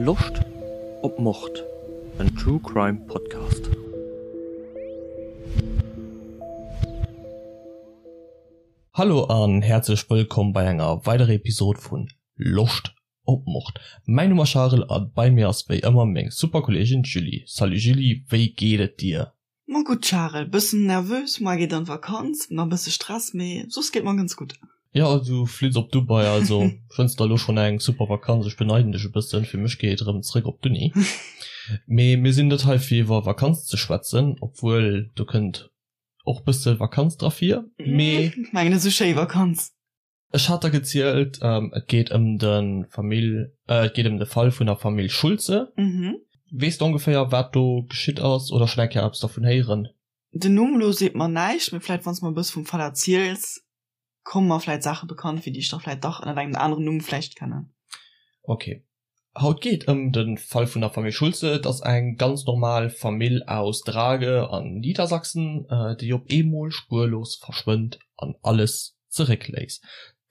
Loscht op Mord? En True Crime Podcast. Hallo an häerzlech wëllkomm bei enger weiderer Episode vun Loscht op Mord. Mäin Numm ass Charel a bei mir ass wéi ëmmer meng super Kolleegin Julie. Salut Julie, wéi geet et dir? Ma gutt Charel, bëssen nervös, moar geet an d'Vakanz, na bësse Stress, mee soss geet mer ganz gutt. Jo, du flitt op Dubai, also wënns der elo schonn eng super Vakanz. Ech beneiden dech e bëssen, fir mech geet et erëm zréck op d'Uni. Mee mir sinn net hei fir iwwer Vakanz ze schwätzen, obwuel do kënnt och bësse Vakanz dra vir, mee. Mengen esou schéi Vakanz. Ech hat der gezielt, et geet ëm de Famill, et geet ëm de Fall vun der Famill Schulze. Weess de ongeféier, wat do geschitt ass oder schonn eng Kéier eppes dervun héieren? Den Numm elo seet mer näischt, mee vläicht wann s de mer e bësse vum Fall erziels, komme mer vläicht Saache bekannt vir, déi ech da vläicht dach ënnert engem aneren Numm vläicht kennen. Ok. Haut geet ëm de Fall vun der Famill Schulze. Et ass eng ganz normal Famill aus Drage an Niedersachsen, déi op eemol spuerlos verschwënnt an alles zeréckléisst.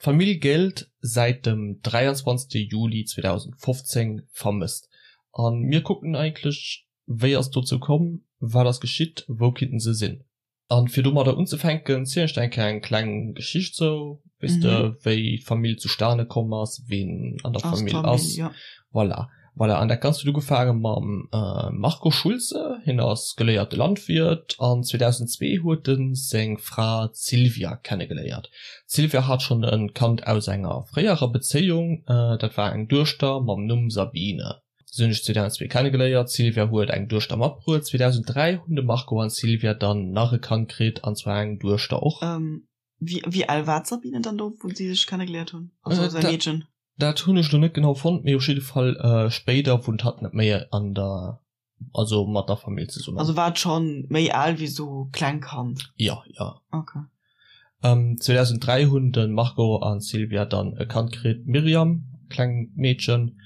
D'Famill géllt säit dem 23 Juli 2015 vermësst. A mir kucken eigentlech, wéi ass et dozou komm, wat ass geschitt, wou kinnten se sinn? An fir domadder unzefänken, zielen ech der eng Kéier eng kleng Geschicht sou, weess de, wéi d'Famill zustane komm ass, ween an der Famill ass. Voilà. Voilà. An dat Ganzt huet ugefaange mam Marco Schulze. Hien ass geléierte Landwirt an 2002 huet e seng Fra d'Sylvia kennegeléiert. D'Sylvia hat schonn e Kand aus enger fréierer Bezéiung, dat war eng Duechter mam Numm Sabine. Si hunn sech 2002 kennegeléiert, d'Sylvia huet eng Duechter matbruet. 2003 hunn de Marco an d'Sylvia dann nach e Kand kritt, an zwar eng Duechter och. Wéi al war d'Sabine dann do, wou si sech kennegeléiert hunn, also säi Meedchen? Dat hunn ech lo net genau fonnt, mee op jidde Fall spéider wunnt hatt net méi an der, also mat der Famill zesummen. Also war et schonn méi al wéi sou kleng Kand? Jo, jo. Ok. 2003 hunn de Marco an d'Sylvia dann e Kand kritt, d'Myriam, klengt Meedchen.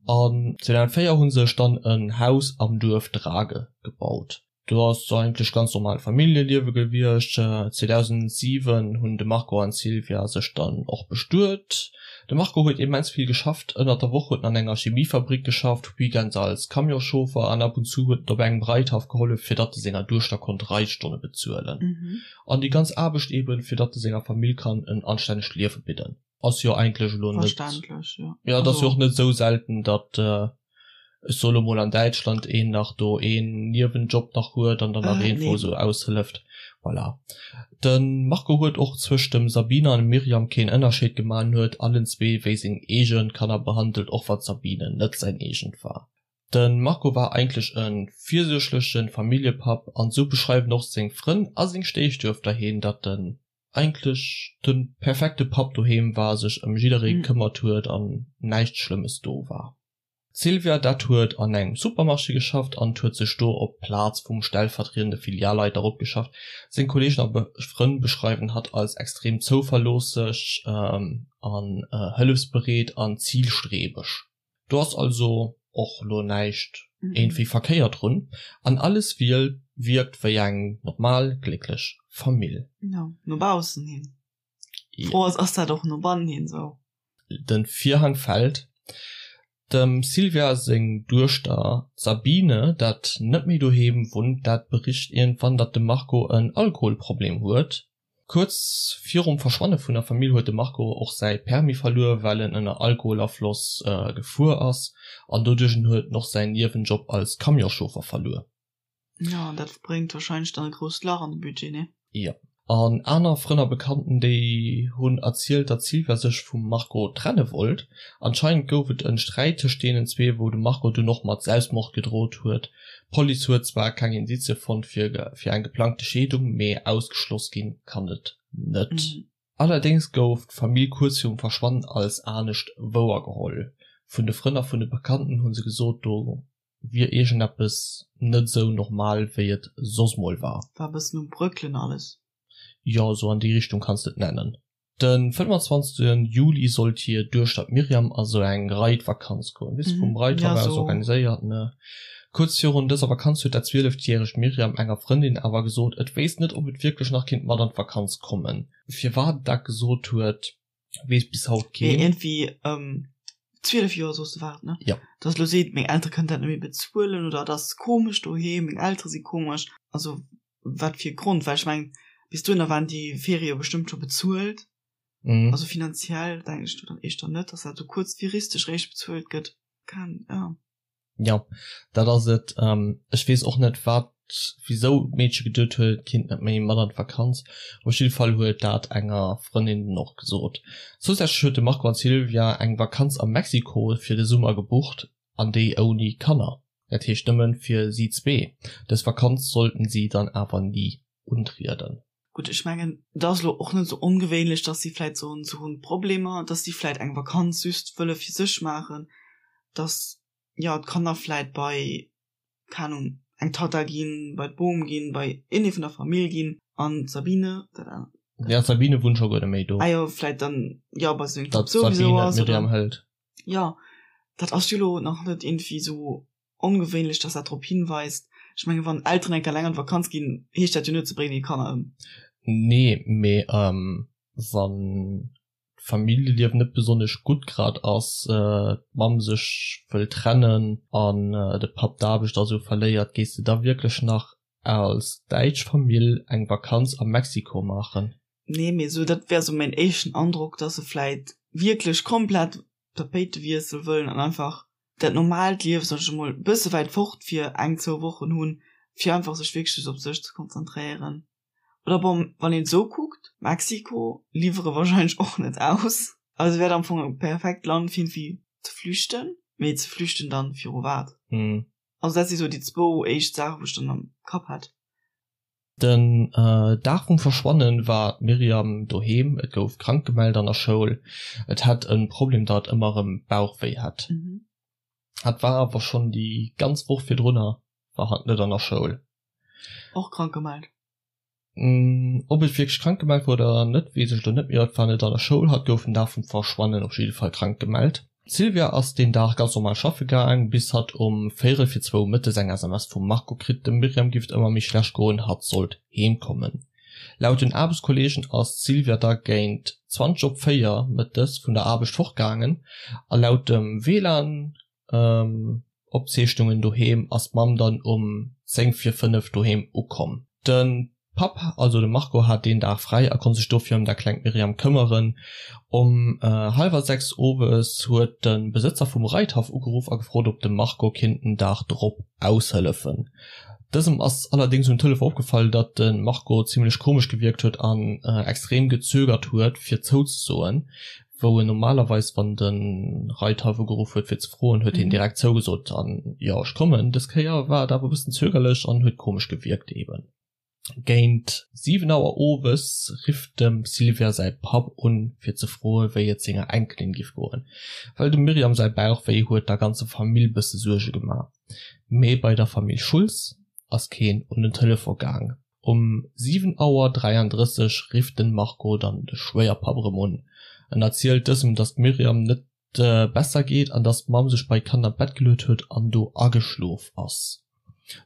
An 2004 hu sech dann en Haus am Duerf Drage gebaut. Do ass eigentlech ganz normal Familljeliewe gewiescht. 2007 hunn de Marco an d'Sylvia sech dann och bestuet. De Marco huet immens vill geschafft. Ënnert der Woch huet en an enger Chemiefabrik geschafft, weekends als Camionschauffer an ab und zu huet en op engem Reithaff gehollef, fir datt e senger Duechter konnt Reitstonne bezuelen. An déi ganz Aarbecht eben, fir datt e senger Famill kann en anstännegt Liewe bidden. Ass jo eigentlech elo net. Verständlech, jo. Jo, et ass jo och net esou selten, datt, ech soe lo mol, an Däitschland een nach do een Niewenjob nach huet an dann nach een, wou esou aushëlleft. Voilà. De Marco huet och zwëscht dem Sabine an dem Myriam keen Ënnerscheed gemaach an huet allen zwee wéi seng eege Kanner behandelt, och wann d'Sabine net säin eegent war. De Marco war eigentlech e virsuergleche Familljepapp an esou beschreiwen och seng Frënn a seng Stéifduechter hien, datt en eigentlech de perfekte Papp doheem war, sech ëm jidderee gekëmmert huet an näischt Schlëmmes do war. D'Sylvia, dat huet an engem Supermarché geschafft an huet sech do op d'Plaz vum stellvertriedende Filialleiter eropgeschafft. Seng Kolleegen a Frënn beschreiwen hatt als extrem zouverloosseg an hëllefsbereet an zilstrebeg. Do ass also och lo näischt iergendwéi verkéiert drun an alles wierkt wéi eng normal glécklech Famill. Jo, no baussen hin. D'Fro ass, ass dat och no bannen hin esou? De Virhang fält. Dem Sylvia seng Duechter d'Sabine, dat net méi doheem wunnt, dat bericht iergendwann, datt de Marco en Alkoholproblem huet. Kuerz virum Verschwanne vun der Famill huet de Marco och säi Permis verluer, well en ënner Alkoholafloss gefuer ass an doduerch en huet en och säin Niewenjob als Camionschauffer verluer. Jo, an dat bréngt warscheinlech dann e grousst Lach an de Budget, nee? Jo. An aner Frënn a Bekannten, déi hunn erzielt, datt d'Sylvia sech vum Marco trenne wollt. Anscheinend gouf et en Sträit tëscht deenen zwee, wou de Marco dunn och mat Selbstmord gedrot huet. D'Police huet zwar keng Indizie fonnt fir eng geplangte Scheedung, mee ausgeschloss ginn kann et net. Allerdéngs gouf d'Famill kuerz virum Verschwannen als anescht wouergeholl. Vun de Frënn a vun de Bekannten hu se gesot, do wier iergendeppes net esou normal, wéi et soss mol war. War e bëssen um Bröckelen alles. Jo, esou an déi Richtung kanns de et nennen. De 25 Juli sollt hir Duechter d'Myriam a sou eng Reitvakanz goen, weess de, vum Reithaff aus organiséiert, ne. Kuerz virun dëser Vakanz huet dat 12 järegt Myriam enger Frëndin awer gesot, et wéisst net, ob et wierklech nach kinnt mat an d'Vakanz kommen. Firwat et dat gesot huet, weess bis haut keen. Mee iergendwéi. 12 Joer soos de war et, ne? Jo. Dass elo seet, meng Eltere kënnen dat net méi bezuelen oder et ass komesch doheem, meng Eltere si komesch. Also wat fir e Grond? Well ech mengen, bis dohinner waren déi Ferie jo bestëmmt scho bezuelt. Also finanziell denken ech do dann éischter net, dass dat esou kuerzfiristeg réischt bezuelt gëtt. Kann, ja. Jo, dat ass et. Ech weess och net, wat, wisou d'Meedche geduet huet, et kinnt net méi mat an d'Vakanz. Op jidde Fall huet dat enger Frëndin dann och gesot. Zousätzlech huet de Marco an d'Sylvia eng Vakanz a Mexiko fir de Summer gebucht, an déi ouni Kanner, dat heescht nëmmen fir si zwee. Dës Vakanz sollten si dann awer ni untrieden. Gutt, ech mengen, et ass elo och net esou ongewéinlech, dass si vläit soen, se hunn Problemer, dass si vläit eng Vakanz just wëlle fir sech maachen, dass, jo, d'Kanner vläit bei, keng Ahnung, eng Tatta ginn, bei d'Bom ginn, bei iergendee vun der Famill ginn an d'Sabine, dat anert. Ja, d'Sabine wunnt scho guer net méi do. Ah jo, vläit dann, jo, bei sengem Papp souwisou ass, oder. Datt d'Sabine d'Myriam hëlt. Jo, dat ass jo elo nach net iergendwéi esou Ongewéinlech, dass dat drop hinweist. Ech mengen, wann Elteren eng Kéier eleng an d'Vakanz ginn, heescht dat jo net, se bréngen hir Kanner ëm. Nee, mee wann d'Familljeliewen net besonnesch gutt grad ass, d'Mamm sech wëll trennen an de Papp d'Aarbecht a sou verléiert, gees de da wierklech nach als däitsch Famill eng Vakanz a Mexiko maachen? Nee, mee sou dat wär sou mäin éischten Androck, dass se vläit wierklech komplett Tapéitewiessel wëllen an einfach dat normaalt Liewen, sag ech emol, e bësse wäit fort fir eng, zwou Wochen hunn, fir einfach sech wierklech just op sech ze konzentréieren. Oder bon, wann een et esou kuckt, Mexiko liwwere wahrscheinlech och net aus. Also wär am Fong e perfekt Land fir irgendwie ze flüchten, mee ze flüchten dann viru wat? Also dat si sou déi zwou éischt Saachen, wou ech dann am Kapp hat. Den Dag vum Verschwannen war d'Myriam doheem, et gouf krank gemellt an der Schoul. Et hätt e Problem datt et ëmmer erëm Bauchwéi hätt. Hat war awer schonn déi ganz Woch virdrunner war hatt net an der Schoul. Och krank gemellt? Ob et wierklech krank gemellt war oder net weess ech elo net, mee hatt war net an der Schoul. Hatt gouf den Dag vum Verschwannen op jidde Fall krank gemellt. D'Sylvia ass deen Dag ganz normal schaffe gaang, bis hatt um véierel fir zwou mëttes eng SMS vum Marco kritt, dem Myriam giff et ëmmer méi schlecht goen, hatt sollt heem kommen. Laut den Aarbechtskolleegen ass d'Sylvia da géint 20 op 4 mëttes vun der Aarbecht fortgaangen a laut dem WLAN Opzeechnungen doheem ass d'Mamm dann um 10 vir 5 doheem ukomm. De Papp, also de Marco, hat deen Dag fräi a konnt sech dofir ëm dat klengt Myriam këmmeren. Um hallwer 6 owes huet de Besëtzer vum Reithaff ugeruff a gefrot, ob de Marco kinnt den Dag drop aushëllefen. Dësem ass allerdéngs um Telefon opgefall, datt de Marco zimmlech komesch gewierkt huet an extrem gezögert huet, fir zouzesoen. wou en normalerweis wann de Reithaff ugeruff huet fir ze froen, huet hien direkt zougesot an jo ech kommen. Dës Kéier war et awer e bëssen zögerlech an huet komesch gewierkt eben. Géint 7 Auer owes rifft dem Sylvia säi Papp un fir ze froe wéi et senger Enkelin giff goen, well dem Myriam säi Bauch wéi huet der ganzer Famill bësse Suerge gemaach. Mee bei der Famill Schultz ass keen un den Telefon gaang. Um 7 Auer 33 rifft den Marco dann de Schwéierpapp erëm un. En erzielt dësem, dass d'Myriam net besser geet an dass d'Mamm sech bei d'Kanner an d'Bett geluet huet an do ageschlof ass.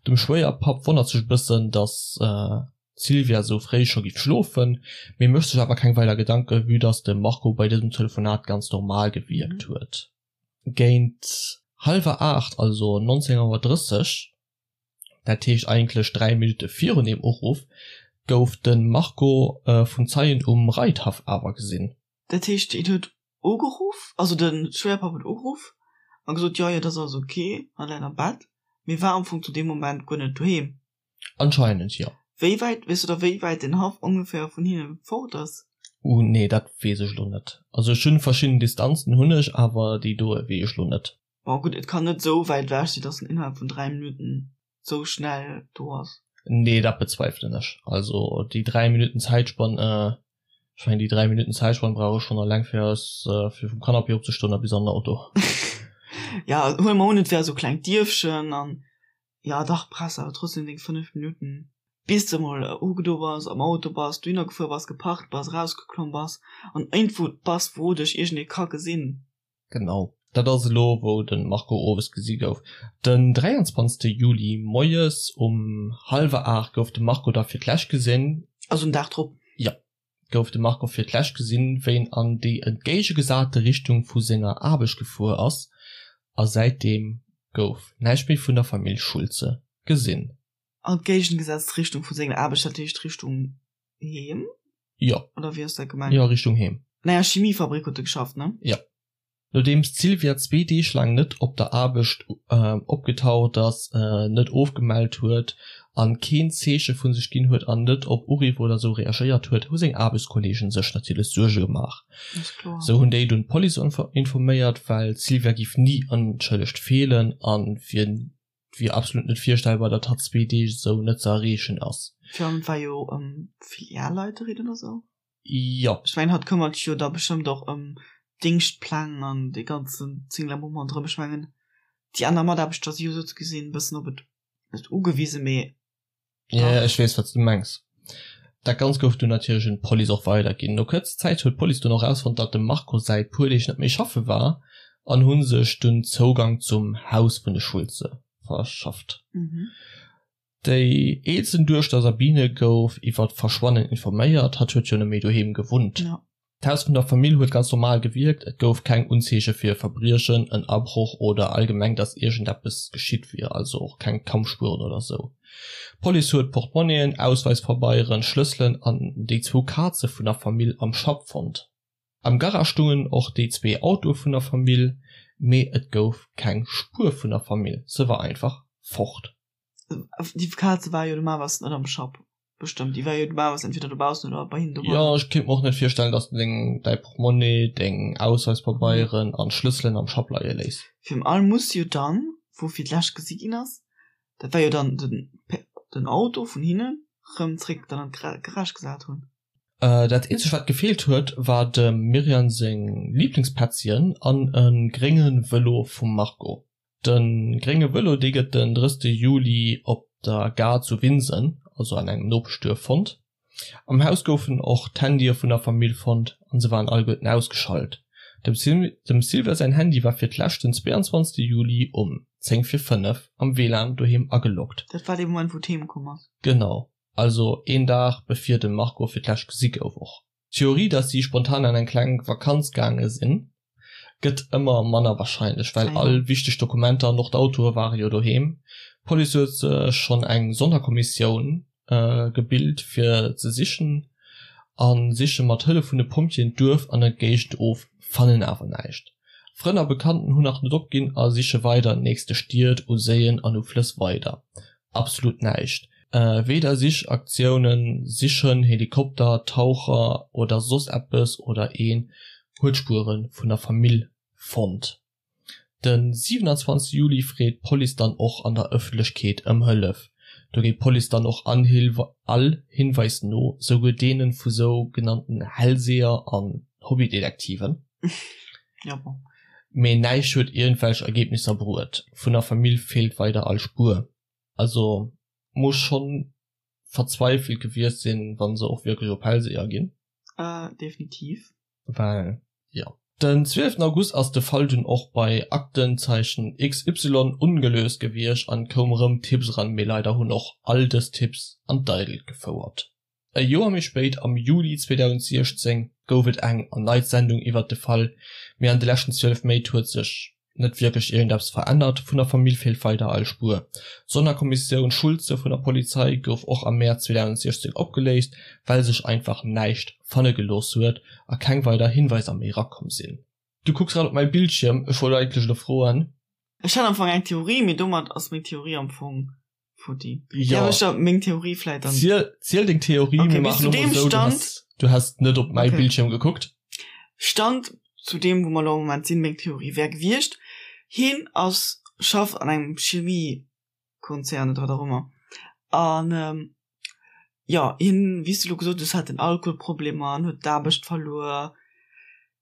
Dem Schwéierpapp wonnert sech e bëssen, dass d'Sylvia sou fréi scho giff schlofen, mee mécht sech awer keng weider Gedanken, vue dass de Marco bei dësem Telefonat ganz normal gewierkt huet. Géint hallwer 8, also 19 Auer 30, dat heescht eigentlech 3 Minutte virun deem Uruff, gouf de Marco vun Zeien um Reithaff awer gesinn. Dat heescht, hien huet ugeruff, also de Schwéierpapp huet ugeruff a gesot, jo, jo, dat ass alles ok, hatt läit am Bett, mee war am Fong zu deem Moment guer net doheem. Anscheinend, jo. Wéi wäit, weess du da wéi wäit den Haff ongeféier vun hinne fort ass? Uh, nee, dat weess ech elo net. Also ech hunn verschidden Distanzen hunn ech, awer déi doe weess ech elo net. Bon gutt, et kann net esou wäit ewech sinn, dass en innerhalb vun 3 Minutten esou schnell do ass. Nee, dat bezweifelen ech. Also déi 3 Minutten Zäitspann, ech mengen déi 3 Minutten Zäitspann brauch ech schonn eleng fir aus fir vum Canapé opzestoen a bis an den Auto. Ja, huele mer un et wär esou klengt Dierfchen an ja dach brauchs awer trotzdem deng 5 Minutten bis de mol ugedo bass, am Auto bass, dohinner gefuer bass, geparkt bass, erausgeklomm bass an iergendwou bass wou dech iergendee ka gesinn. Genau, dat ass elo wou de Marco owes gesi gouf. Den 23 Juli moies um hallwer 8 gouf de Marco da fir d'lescht gesinn. Also en Dag drop? Jo. gouf de Marco fir d'lescht gesinn, wéi en an déi entgéigegesate Richtung vu senger Aarbecht gefuer ass a säitdeem gouf näischt méi vun der Famill Schulze gesinn. An d'géigengesetzt Richtung vu senger Aarbecht, dat heescht Richtung Heem? Jo. Oder wéi ass dat gemengt? Jo, Richtung Heem. An enger Chemiefabrik huet e geschafft, ne? Jo. Nodeems d'Sylvia zwee Deeg laang net op der Aarbecht opgetaucht ass, net ofgemellt huet an keen Zeeche vu sech ginn huet an net op Uriff oder sou reagéiert huet, hu seng Aarbechtskolleegen sech natierlech Suerge gemaach. Sou hunn déi dunn d'Police informéiert, well d'Sylvia giff ni onschëllegt feelen an wier wier absolut net virstellbar, datt hatt zwee Deeg esou net ze erreechen ass. Virun allem war jo Filialleiterin oder sou. Jo. Ech mengen hatt këmmert sech jo da bestëmmt och ëm d'Déngschtpläng an dee ganzen Zinglabumm ronderëm. Ech mengen déi aner Mataarbechter si jo sou ze gesinn e bëssen op et, net ugewisen, mee dach. Jo, ech weess wat s du mengs. Dat Ganzt gouf dunn natierlech un d'Police och weiderginn. No kuerzer Zäit huet d'Police dunn och erausfonnt, datt dem Marco säit puer Deeg net méi schaffe war an hu sech dunn Zougang zum Haus vun de Schulze verschafft. Déi eelsten Duechter Sabine gouf iwwer d'Verschwannen informéiert, hatt huet jo net méi doheem gewunnt. D'Haus vun der Famill huet ganz normal gewierkt, et gouf keng Unzeeche fir e Verbriechen, en Abroch oder allgemeng dass iergendeppes geschitt wier, also och keng Kampfspueren oder sou. D'Police huet Portmonnien, Ausweispabeieren, Schlësselen an déi zwou Kaze vun der Famill am Schapp fonnt. Am Garage stungen och déi zwee Autoe vun der Famill, mee et gouf keng Spuer vun der Famill, se war einfach fort. Déi Kaze war jo normalerweis net am Schapp. Bestëmmt, déi war jo normalerweis entweder dobaussen oder bei hinnen doheem. Jo, ech kéint mer och net virstellen, dass de deng, däi Portmonnaie, deng Ausweispabeieren an d'Schlësselen am Schapp leie léiss. Virun allem muss jo dann, wou fir d'lescht gesi ginn ass, dat war jo dann den, den Auto vun hinnen, rëm zréck dann an d'Garage gesat hunn. Dat eenzegt wat gefeelt huet, war dem Myriam seng Liblingspätzchen an e grénge Vëlo vum Marco. De grénge Vëlo, dee gëtt den 30 Juli op der Gare zu Winsen, also an engem Nopeschduerf, fonnt. Am Haus goufen och d'Handye vun der Famill fonnt an se waren alleguerten ausgeschalt. Dem Sylvia säin Handy war fir d'lescht den 22 Juli um 10 vir 5 am WLAN doheem ageloggt. Dat war dee Moment, wou d'Heem komm ass. Genau, also een Dag bevir de Marco fir d'lescht gesi gouf och. D'Theorie, dass si spontan an eng kleng Vakanz gaange sinn, gëtt ëmmer manner warscheinlech, well all wichteg Dokumenter an och d'Autoe ware jo doheem. D'Police huet sech schonn eng Sonnerkommissioun gebilt fir ze sichen a siche mat Hëllef vun de Pompjeeën d'Duerf an der Géigend of, fannen awer näischt. Frënn a Bekannten hunn nach net opginn a siche weider an nächste Stied, u Séien an u Flëss weider. Absolut näischt. Weder Sichaktiounen, Sichhënn, Helikopter, Taucher oder soss eppes oder een huet Spuere vun der Famill fonnt. De 27 Juli freet d'Police dann och an der Ëffentlechkeet ëm Hëllef. Do geet d'Police dann och all Hinweis no, souguer deene vu sou genannten Hellseher an Hobbydetektiven. Mee näischt huet iergendwelch Ergebnisser bruet. Vun der Famill feelt weider all Spuer. Also muss schonn verzweifelt gewiescht sinn, wann se och wierklech op Hellseher ginn. Definitiv. Well jo. Den 12 August ass de Fall dunn och bei Aktenzeichen XY ongelöst gewiescht an koum rëm Tipps eran, mee leider hunn och all dës Tipps an d'Eidelt gefouert. E Joer méi spéit, am Juli 2016, gouf et eng erneit Sendung iwwert de Fall, mee an de leschten 12 Méint huet sech net wierklech iergendeppes verännert. Vun der Famill feelt weider all Spuer. D'Sonnerkommissioun Schulze vun der Polizei gouf och am Mäerz 2016 opgeléist, well sech einfach näischt fanne gelooss huet a keng weider Hinweiser méi erakomm sinn. Du kucks grad op mäi Bildschierm, ech wollt eigentlech elo froen. Ech hat am Fong eng Theorie, mee domat ass meng Theorie am Fong Futti. Ja. Därf ech da meng Theorie vläit dann. Ziel, ziel deng Theorie, Okay, mir bis maachen zu elo deem mol sou, du Stand. has, du has net op mäi Okay. Bildschierm gekuckt. Stand zu deem, wou mer elo am Moment sinn, meng Theorie wär gewiescht, hien ass, schafft an engem Chemiekonzern oder wat och ëmmer an, jo, hien, wéi s de elo gesot hues, hat den Alkoholproblemer an huet d'Aarbecht verluer.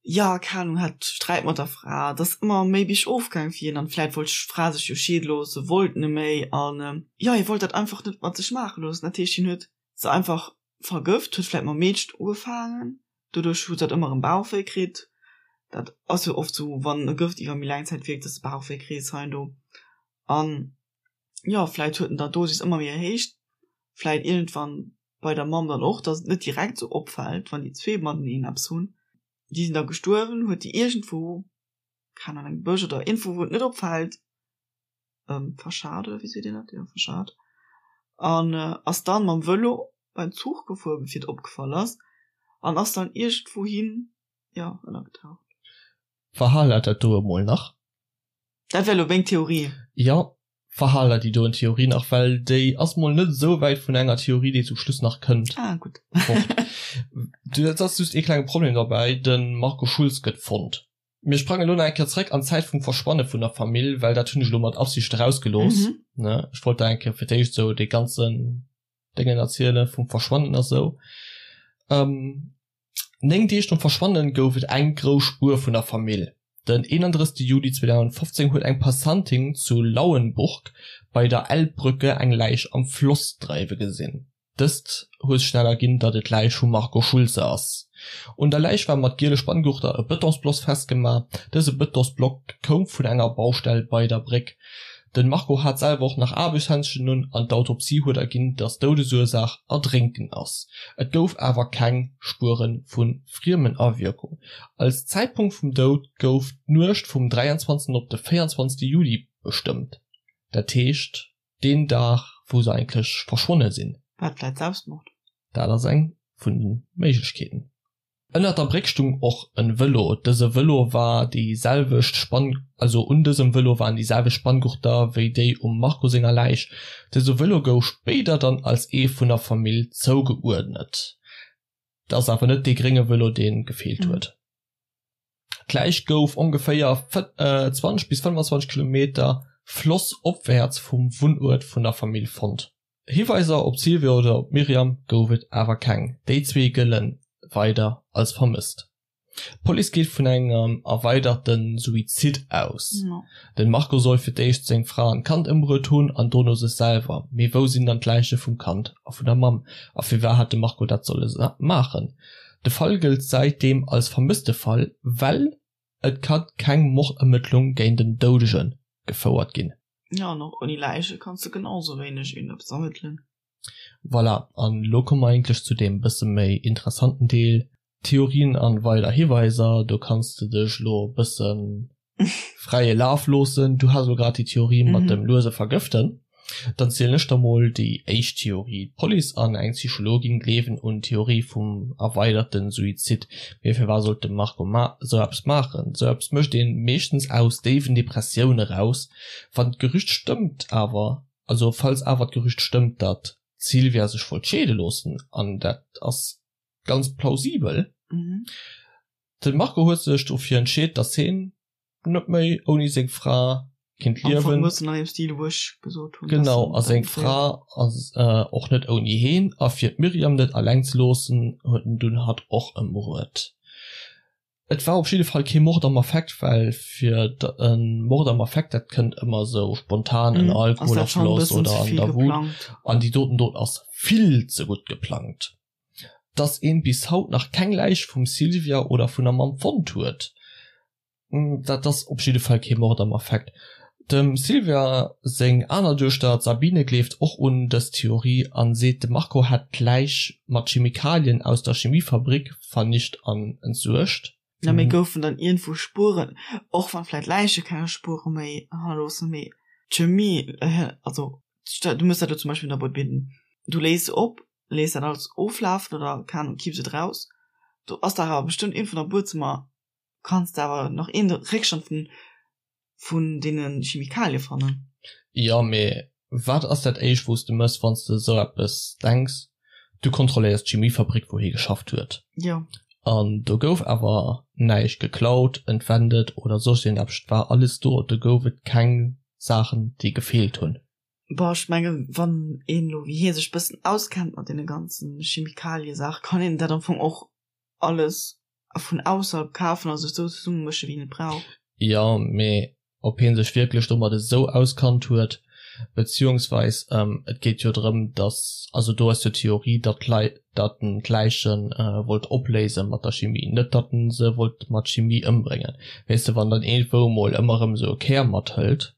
Jo, keng Ahnung, hat Sträit mat der Fra, et ass ëmmer méi biergof gaang fir hien an vläit wollt d'Fra sech jo scheede loossen, wollt net méi an jo, hie wollt dat einfach net mat sech maache loossen. Dat heescht, hien huet se einfach vergëft, huet vläit mam Meedchen ugefaangen, doduerch huet se dat ëmmer erëm Bauchwéi kritt. Dat ass jo oft sou, wann e Gëft iwwer méi laang Zäit wierkt, dass de Bauchwéi kriss hei an do an jo, vläit huet en da d'Dosis ëmmer méi erhéicht, vläit iergendwann. bei der Mamm dann och, dass et net direkt sou opfält, wann déi zwee mateneen eppes hunn. Déi sinn da gestuerwen, huet déi iergendwou, keng Ahnung, an engem Bësch oder iergendwou, wou et net opfält, verschat oder wéi seet een dat, jo verschat, an ass dann mam Vëlo beim Zuch gefuer, bevir et opgefall ass, an ass dann iergendwou hin, jo, ënnergetaucht. Verhal dat do emol nach. Dat wär elo meng Theorie. Jo, verhaler déi doen Theorie nach, well déi ass mol net esou wäit vun enger Theorie, déi zum Schluss nach kënnt. Ah, gutt. Fort. Et ass just ee klenge Problem derbäi, de Marco Schulz gëtt fonnt. Mir sprangen elo nach eng Kéier zréck an d'Zäit vum Verschwanne vun der Famill, well dat hunn ech elo mat Absicht erausgelooss, ne. Ech wollt der eng Kéier fir d'éischt esou dee ganzen Déngen erziele vum Verschwannen a sou. 9 Deeg nom Verschwannen gouf et eng grouss Spuer vun der Famill. Den 31 Juli 2015 huet eng Passantin zu Lauenburg bei der Elbbrücke eng Läich am Floss dreiwe gesinn. Dëst huet schnell erginn, datt et d'Läich vum Marco Schulze ass. Un der Läich war mat giele Spanngurter e Betonsbloss festgemaach. Dëse Betonsblock koum vun enger Baustell bei der Bréck. Den Marco hat selwer och nach Aarbechtshändschen un an d'Autopsie huet erginn, dass d'Doudesursaach Erdrénken ass. Et gouf awer keng Spuere vu Friemenawierkung. Als Zäitpunkt vum Doud gouf d'Nuecht vum 23 op de 24 Juli bestëmmt, dat heescht deen Dag wou se eigentlech verschwonne sinn. War et vläit Selbstmord? Dat ass eng vun de Méiglechkeeten. Ënnert der Bréck stung och en Vëlo. Dëse Vëlo war déi selwecht Spann, also un dësem Vëlo waren déi selwecht Spanngurter wéi déi um Marco senger Läich. Dëse Vëlo gouf spéider dann als ee vun der Famill zougeuerdnet. Et ass awer net dee grénge Vëlo dee gefeelt huet. D'Läich gouf ongeféier 20 bis 25 Kilometer flossopwäerts vum Wunnuert vun der Famill fonnt. Hiweiser op d'Sylvia oder op d'Myriam gouf et awer keng. Déi zwee gëlle weider als vermësst. D'Police geet vun engem erweiderte Suizid aus. Den Marco soll fir d'éischt seng Fra an d'Kand ëmbruet hunn an dono sech selwer. Mee wou sinn dann d'Läiche vum Kand a vun der Mamm? A firwat hat de Marco dat solle maachen? De Fall gëllt säitdeem als Vermësstefall, well et ka keng Mordermëttlung géint en Doudege gefouert ginn. Ja, an och ouni Läiche kanns de genau sou wéineg iergendeppes ermëttelen. Voilà, an elo komme mer eigentlech zu deem bësse méi interessanten Deel, Theorien an weider Hiweiser. Do kanns de dech elo e bësse fräie Laf loossen. Du has elo grad déi Theorie mat dem luese Vergëften. Dann zielen ech der mol déi éischt Theorie. D'Police an eng Psychologin gleewen un d'Theorie vum erweiderten Suizid. Mee firwat sollt de Marco ma sou eppes maachen? Sou eppes mécht een meeschtens aus déiwen Depressioune raus. Wann d'Gerücht stëmmt awer, also falls awer d'Gerücht stëmmt, datt d'Sylvia sech wollt scheede loossen, an dat ass ganz plausibel, de Marco huet sech dofir entscheet, datt heen net méi ouni seng Fra kinnt liewen. Genau, a seng Fra ass och net ouni heen, a fir d'Myriam net alleng ze loossen, huet en dunn hatt och ëmbruet. Et war op jidde Fall kee Mord am Affekt, well fir e Mord am Affekt, dat kënnt ëmmer esou spontan, ënner Alkoholafloss oder an der Wut, an déi doten Dot ass vill ze gutt geplangt. Dass een bis haut nach keng Läich vum Sylvia oder vun der Mamm fonnt huet, dat ass op jidde Fall kee Mord am Affekt. Dem Sylvia seng aner Duechter, d'Sabine, gleeft och un dës Theorie an seet, de Marco hätt d'Läich mat Chemikalien aus der Chemiefabrik vernicht an entsuergt. Na mee goufen dann iergendwou Spueren, och wann vläit Läiche keng Spuere méi hannerloossen, mee d'Chemie, also du mëss dat elo zum Beispill an der Boîte Bidden, du léis se op, léiss dat alles oflafen oder keng Ahnung, kipps et raus, do ass dach awer bestëmmt iergendwou am Buedzëmmer kanns de awer nach een Réckstand vun vun deene Chemikalie fannen. Jo, mee wat ass dat éischt wou s de mëss wann s de esou eppes denks? Du kontrolléiers d'Chemiefabrik wou hie geschafft huet. Jo. An do gouf awer näischt geklaut, entwendet oder soss iergendeppes, et war alles do, do gouf et keng Saachen déi gefeelt hunn. Bon, ech mengen wann een elo wéi hie sech bëssen auskennt mat deene ganzen Chemikaliesaachen, kann een dat am Fong och alles vun ausserhalb kafen a sech sou zesummemëschen, wéi een et brauch. Jo, mee ob hie sech wierklech domat esou auskannt huet, beziehungsweis et geet jo drëm, datt, also do ass jo d'Theorie, datt d'Leit, datt en d'Läiche wollt opléise mat der Chimie, net datt en se wollt mat Chimie ëmbréngen. Weess de, wann dann iergendwou emol ëmmer erëm esou e Kär mathëlt.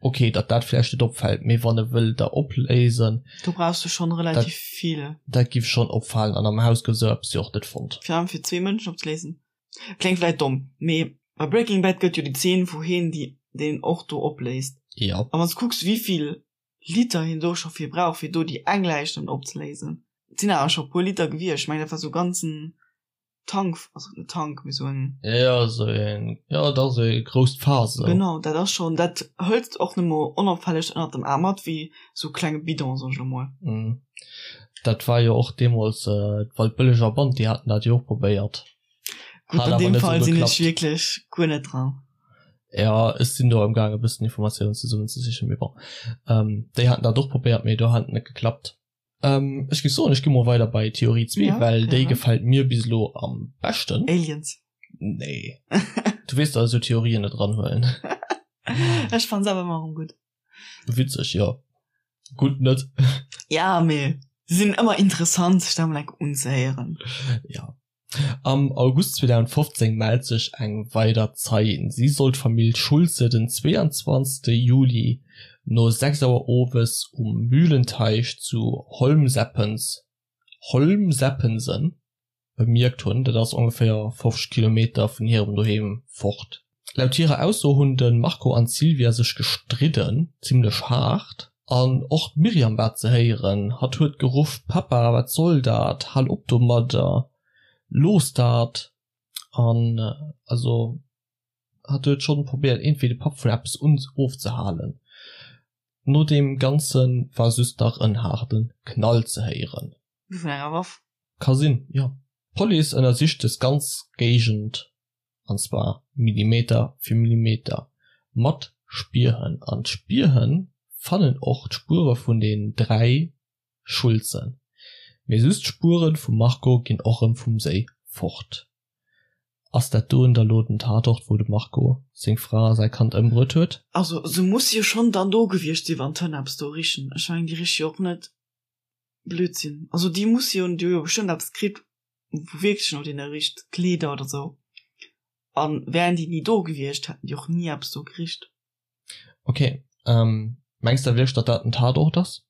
Ok, datt dat vläicht net opfält, mee wann e wëll der opléisen. Do brauchs de schonn relativ vill. Dat giff schonn opfalen an am Haus gouf esou eppes jo och net fonnt. Virun allem fir zwee Mënschen opzeléisen. Kléngt vläit domm, mee bei Breaking Bad gëtt jo déi Zeen wou heen déi deen och do opléist. Jo. A wann s kucks wéivill Liter hien do scho fir brauch fir do déi eng Läich dann opzeléisen. Et sinn awer scho puer Liter gewiescht, ech mengen dat war sou ganzen Tank, also net Tank, mee sou en. Jo, sou een, jo, dat ass e grousst Faass esou. Genau, dat ass schonn, dat hëls de och net mol onopfälleg ënnert dem Aarm mat, wéi sou klenge Bidon, soen ech elo mol. Dat war jo och deemools d'Waldbëlleger Band, déi haten dat jo och probéiert. Gutt, an deem Fall sinn ech wierklech guer net dran. Jo, ech sinn do amgaang e bëssen Informatiounen zesummenzesichen, mee bon. Déi haten dat och probéiert, mee do hat et net geklappt. Ähm, ech géif soen, ech gi mol weider bei Theorie 2, ja, well déi gefält mir bis elo am beschten. Aliens. Nee. Du weess, dass ech esou Theorien net eranhuelen. Ech fann se awer ëmmer erëm gutt. Witzeg, jo. Gutt net. Ja, mee se sinn ëmmer interessant, sech dat mol enk unzehéieren. Ja. Am August 2015 mellt sech eng weider Zeien. Si soll d'Famill Schulze den 22 Juli no 6 Auer owes um Mühlenteich zu Holmseppens, Holmseppensen, bemierkt hunn. Dat ass ongeféier 50 Kilometer vun hirem Doheem fort. Laut hirer Ausso hunn de Marco an d'Sylvia sech gestridden, zimmlech haart. An och d'Myriam war ze héieren. Hatt huet geruff, Papa, wat soll dat? Hal op domadder! Looss dat! An also hatt huet schonn probéiert iergendwéi de Papp vun eppes ofzehalen. No deem Ganze war just nach en haarde Knall ze héieren. Wéi vun enger Waff? Ka sinn, jo. D'Police ënnersicht des ganz Géigend an zwar Millimeter fir Millimeter, mat Spierhënn. An d'Spierhënn fannen och d'Spuere vun den 3 Schulzen, mee just d'Spuere vum Marco ginn och rëm vum Séi fort. Ass dat doen da lo den Tatort wou de Marco seng Fra a säi Kand ëmbruet huet? Also se muss jo schonn dann do gewiescht sinn, wann d'Hënn eppes do richen. Ech mengen déi riche jo och net Blödsinn. Also déi musse jo, déi hu jo bestëmmt eppes kritt wou wierklech no deene richt, Kleeder oder sou. An wären déi ni do gewiescht, hätten déi och ni eppes do gericht. Ok, mengs de wierklech datt dat den Tatort ass?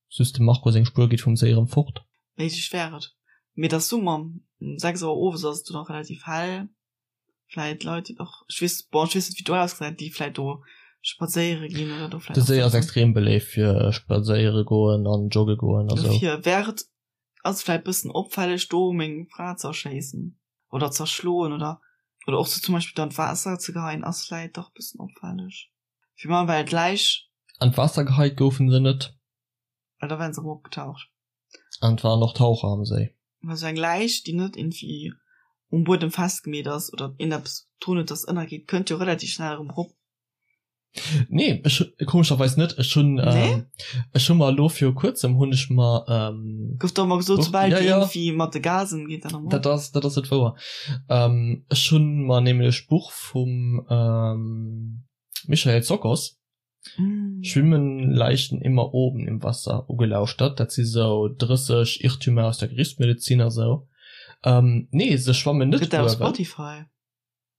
Just dem Marco seng Spuer geet vum Séi erëm fort? Méiglech wär et. Mee et ass Summer, um 6 Auer owes ass et do nach relativ hell. Vläit Leit déi och, ech weess, bon ech weess net wéi do ausgesäit, déi vläit do spadséiere ginn oder do vläit. De Séi ass extrem beléift fir spadséiere goen an jogge goen a sou. Dofir wär et Ass vläit bëssen opfälleg do meng Fra ze erschéissen oder z'erschloen oder oder och se zum Beispill dann d'Waasser ze geheien ass vläit dach bëssen opfälleg. Fir mer well d'Läich. An d'Waasser geheit goufen se net. Well da wären se erëm opgetaucht. An et waren och Taucher am Séi. Well sou eng Läich déi net irgendwie um Buedem festgemeet ass oder iergendeppes drun huet dass ënnergeet kënnt jo relativ schnell erëm erop. Nee, ech komescherweis net. Ech hunn nee? ech hu mer elo viru kuerzem hunn ech mer ähm, Gouf doch emmer gesot, soubal ja, ja. irgendwie mat de Gasen geet dat Dat ass dat ass net wouer. Ähm, ech hunn mer nämlech Buch vum ähm, Michael Tsokos mm. Schwimmen Leichen immer oben im Wasser ugelauschtert. Dat si sou 30 Irrtümer aus der Gerichtsmedizin a sou. Ähm, nee, se schwammen net. Gëtt dat op Spotify?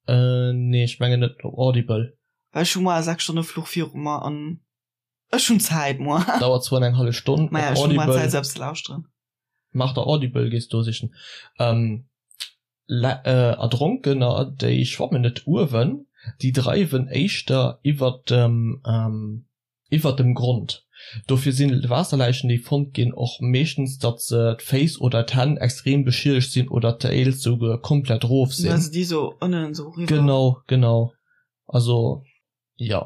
Äh, nee, ech mengen net op Audible. Well ech hu moar e 6 Stonne Fluch viru mer an ech hunn Zäit moar. Dauert zwar eng hallef Stonn. Maja, ech hu moar Zäit selbst ze lauschteren. Mach der Audible, gees do sichen. Ähm, äh, Erdronkener, déi schwammen net uewen, déi dreiwen éischter iwwert dem, ähm, Iwwert dem Grond. Dofir sinn Waasserläichen déi fonnt ginn och meeschtens datt se d'Féiss oder d'Hänn extrem beschiedegt sinn oder deels souguer komplett rof sinn. Well se déi sou ënnen sou riwwer. Genau, genau. Also jo.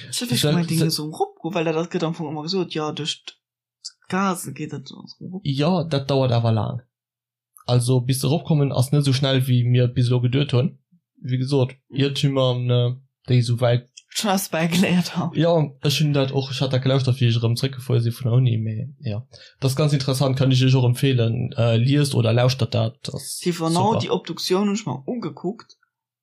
Ech hat wierklech gemengt déi géinge sou eropgoen, well dat gëtt am Fong ëmmer gesot, jo duerch d'Gasen geet dat sou erop. Jo, dat dauert awer laang. Also bis se eropkommen ass net esou schnell wéi mir et bis elo geduet hunn. Wéi gesot, Iertümer déi esou wäit. Schon eppes bäigeléiert haut. Jo, ech hunn dat och, ech hat dat gelauschtert wéi ech erëm zréckgefuer si vun der Uni, mee jo, dat ass ganz interessant, kann ech iech och empfeelen, liest oder lauschtert dat, ass super. Genau, déi Obduktioun hunn ech mer ugekuckt,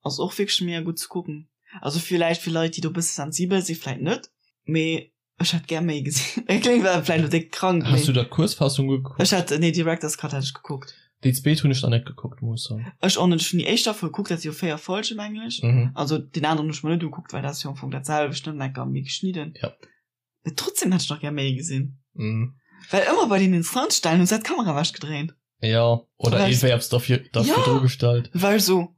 ass och wierklech mega gutt ze kucken. Also villäicht fir Leit déi do e bësse sensibel si vläit net, mee Ech hätt gär méi gesinn. Et kléngt awer vläicht elo déck krank, Has du der d'Kuerzfassung gekuckt? Ech hat, nee, Director's Cut hat ech gekuckt. Déi zweet hunn ech nach net gekuckt, muss ech soen. Ech och net. Ech hunn déi éischt Staffel gekuckt, dat si jo 4 Folgen, mengen ech. Mhm. Also deen aneren hunn ech mer net ugekuckt, well dat ass jo am Fong dat selwecht, nëmmen enker méi geschnidden. Ja. Mee trotzdem hätt ech nach gär méi gesinn. Mhm. Well ëmmer bei den Instanzstellen hu se d'Kamera ewechgedréint. Ja, oder Well- iergendwéi eppes derfir, derfir Ja. dru gestallt. Well so,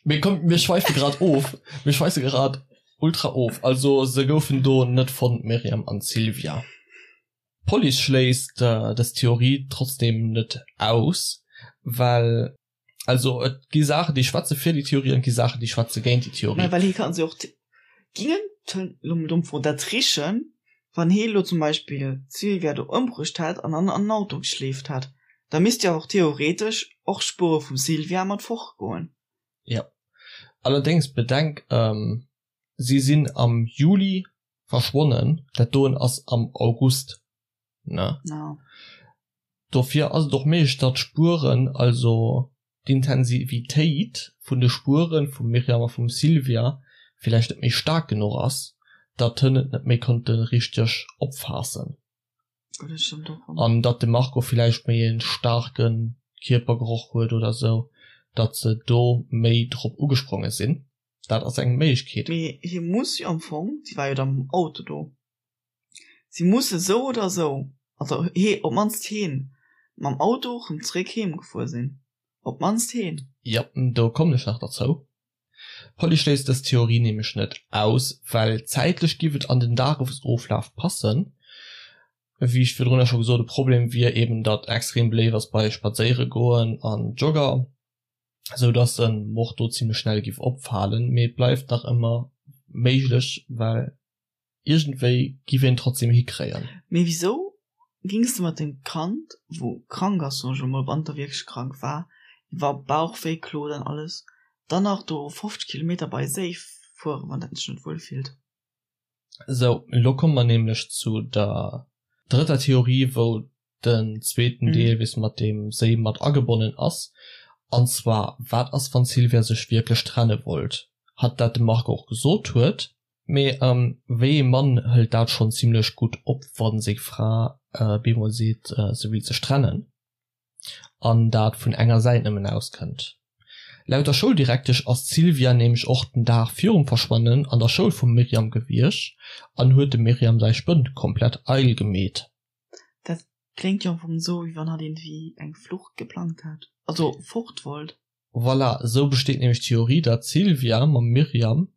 Mee komm, mir schweife grad of. Mir schweife grad ultra of. Also se goufen do net fonnt, d'Myriam an d'Sylvia. D'Police schléisst dës Theorie trotzdeem net aus, well, also et gi Saachen, déi schwätze fir déi Theorie an et gi Saachen, déi schwätze géint déi Theorie. Mä well hie kann se och gingen elo mol domm Fro, dat richen, wann hie elo zum Beispill d'Sylvia do ëmbruecht hätt an an an den Auto geschleeft hätt, da misst jo och theoretesch och Spuere vum Sylvia mat fortgoen. Jo, allerdéngs bedenk, si sinn am Juli verschwonnen, dat doen ass am August, ne? Ja. Dofir ass et och méiglech, datt d'Spueren, also d'Intensivitéit vun de Spueren vum Myriam a vum Sylvia villäicht net méi staark genuch ass, datt hënn et net méi konnte richteg opfaassen. An datt de Marco villäicht méi e staarke Kierpergeroch huet oder sou, datt se do méi drop ugespronge sinn. Dat ass eng Méiglechkeet. Mee hie muss jo am Fong, si war jo da mam Auto do, si musse sou oder sou, also hee, op d'mannst heen, mam Auto rëm zeréck heem gefuer sinn. Op d'mannst heen. Jo, do kommen ech nach derzou. D'Police schléisst dës Theorie nämlech net aus, well zäitlech giff et an den Dagesoflaf passen. Wéi ech virdrunner scho gesot, e Problem wier eben, datt extrem beléift ass bei Spadséiere goen an Jogger. sou dass en Mord do zimlech schnell giff opfaalen, mee et bleift nach ëmmer méiglech, well iergendwéi giff een trotzdem hikréien. Mee wisou gings de mat dem Kand wou krank ass, soen ech elo mol, wann et da wierklech krank war, iwwer Bauchwéi klot an alles, dann nach do 50 Kilometer bei Séi fueren, wann dat sech net wuel fillt? Sou, elo komme mer nämlech zu der drëtter Theorie, wou den zweeten Deel weess mat deem Séi mat agebonnen ass. An zwar, wat ass wann d'Sylvia sech wierklech trenne wollt? Hatt dat dem Marco och gesot huet. Mee wéi ee Mann hëlt dat schonn zimlech gutt op, wa seng Fra bemol seet se wéilt sech trennen? An dat vun enger Säit nëmmen auskënnt. Laut der Schouldirektesch ass d'Sylvia nämlech och den Dag virum Verschwannen an der Schoul vum Myriam gewiescht an huet dem Myriam säi Spënt komplett eidel gemeet. Dat kléngt jo am Fong esou, wéi wann hatt iergendwéi eng Flucht geplangt hätt, also fort wollt. Voilà, esou besteet nämlech d'Theorie, datt d'Sylvia mam Myriam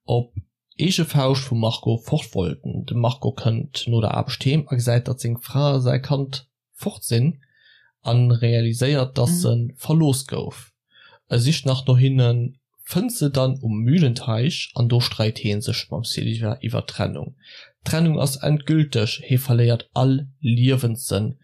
op eege Fauscht vum Marco fort wollten. De Marco kënnt no der Aarbecht heem a gesäit, datt seng Fra a säi Kand fort sinn a realiséiert, datt se verlooss gouf. E sicht nach no hinnen, fënnt se dann um Mühlenteich an do streit hee sech mam Sylvia iwwer d'Trennung. D'Trennung ass endgülteg, hee verléiert all Liewenssënn,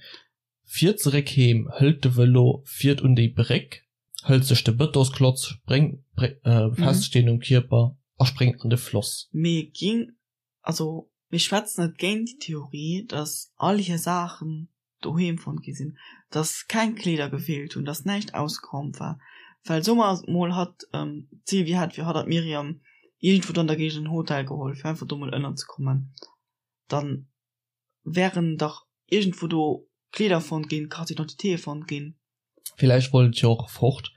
fiert zeréck heem, hëlt de Vëlo, fiert un déi Bréck, hëlt sech de Bëtonsklotz, spréngt befestegt en um Kierper a spréngt an de Floss. Mee ging Also mir schwätzen net géint déi Theorie, datt all hir Saachen doheem fonnt gi sinn, datt keng Kleeder gefeelt hunn, datt näischt ausgeraumt war. Well soe mer mol, hatt, d'Sylvie hätt fir hatt an d'Myriam iergendwou do an der Géigend en Hotel geholl, fir einfach do mol ënnerzekommen, da wären dach iergendwou do Kleeder fonnt ginn, Carte d'identité fonnt ginn. Villäicht wollt et jo och fort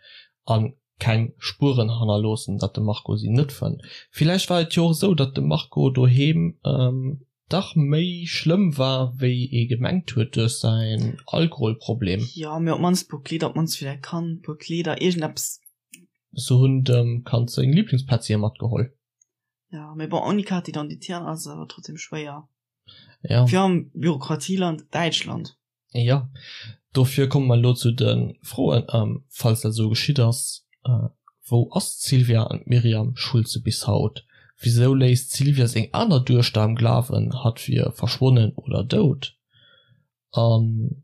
a keng Spueren hannerloossen, datt de Marco si net fënnt. Villäicht war et jo och esou, datt de Marco doheem dach méi schlëmm war, wéi ee gemengt huet duerch säin Alkoholproblem. Jo, mee op d'mannst e puer Kleeder, op d'mannst fir däi Kand e puer Kleeder, iergendeppes. Se hunn dem Kand seng Liblingspetzien matgeholl. Jo, mee bon, ouni Carte d'identité ass et awer trotzdem schwéier. Jo. Fir am Bürokratieland Däitschland. Jo, dofir komme mer elo zu de Froen. Falls dat esou geschitt ass, wou ass d'Sylvia an d'Myriam Schulze bis haut? Wisou léisst d'Sylvia seng aner Duechter am Glawen, hatt wier verschwonnen oder dout? An